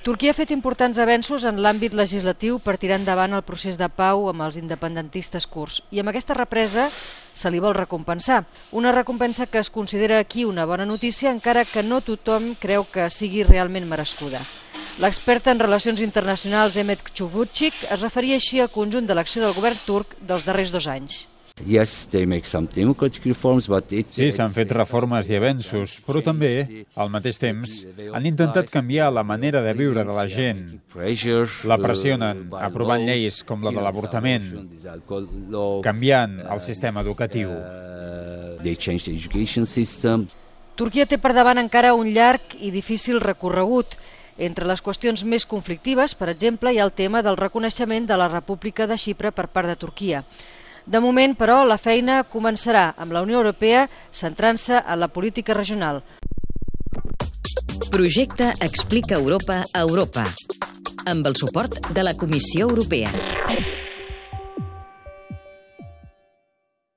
Turquia ha fet importants avenços en l'àmbit legislatiu per tirar endavant el procés de pau amb els independentistes kurds i amb aquesta represa se li vol recompensar. Una recompensa que es considera aquí una bona notícia, encara que no tothom creu que sigui realment merescuda. L'expert en relacions internacionals Mehmet Çubukçik es referia així al conjunt de l'acció del govern turc dels darrers 2 anys. Sí, s'han fet reformes i avenços, però també, al mateix temps, han intentat canviar la manera de viure de la gent. La pressionen, aprovant lleis com la de l'avortament, canviant el sistema educatiu. Turquia té per davant encara un llarg i difícil recorregut. Entre les qüestions més conflictives, per exemple, hi ha el tema del reconeixement de la República de Xipre per part de Turquia. De moment, però, la feina començarà amb la Unió Europea centrant-se en la política regional. Projecte Explica Europa a Europa, amb el suport de la Comissió Europea.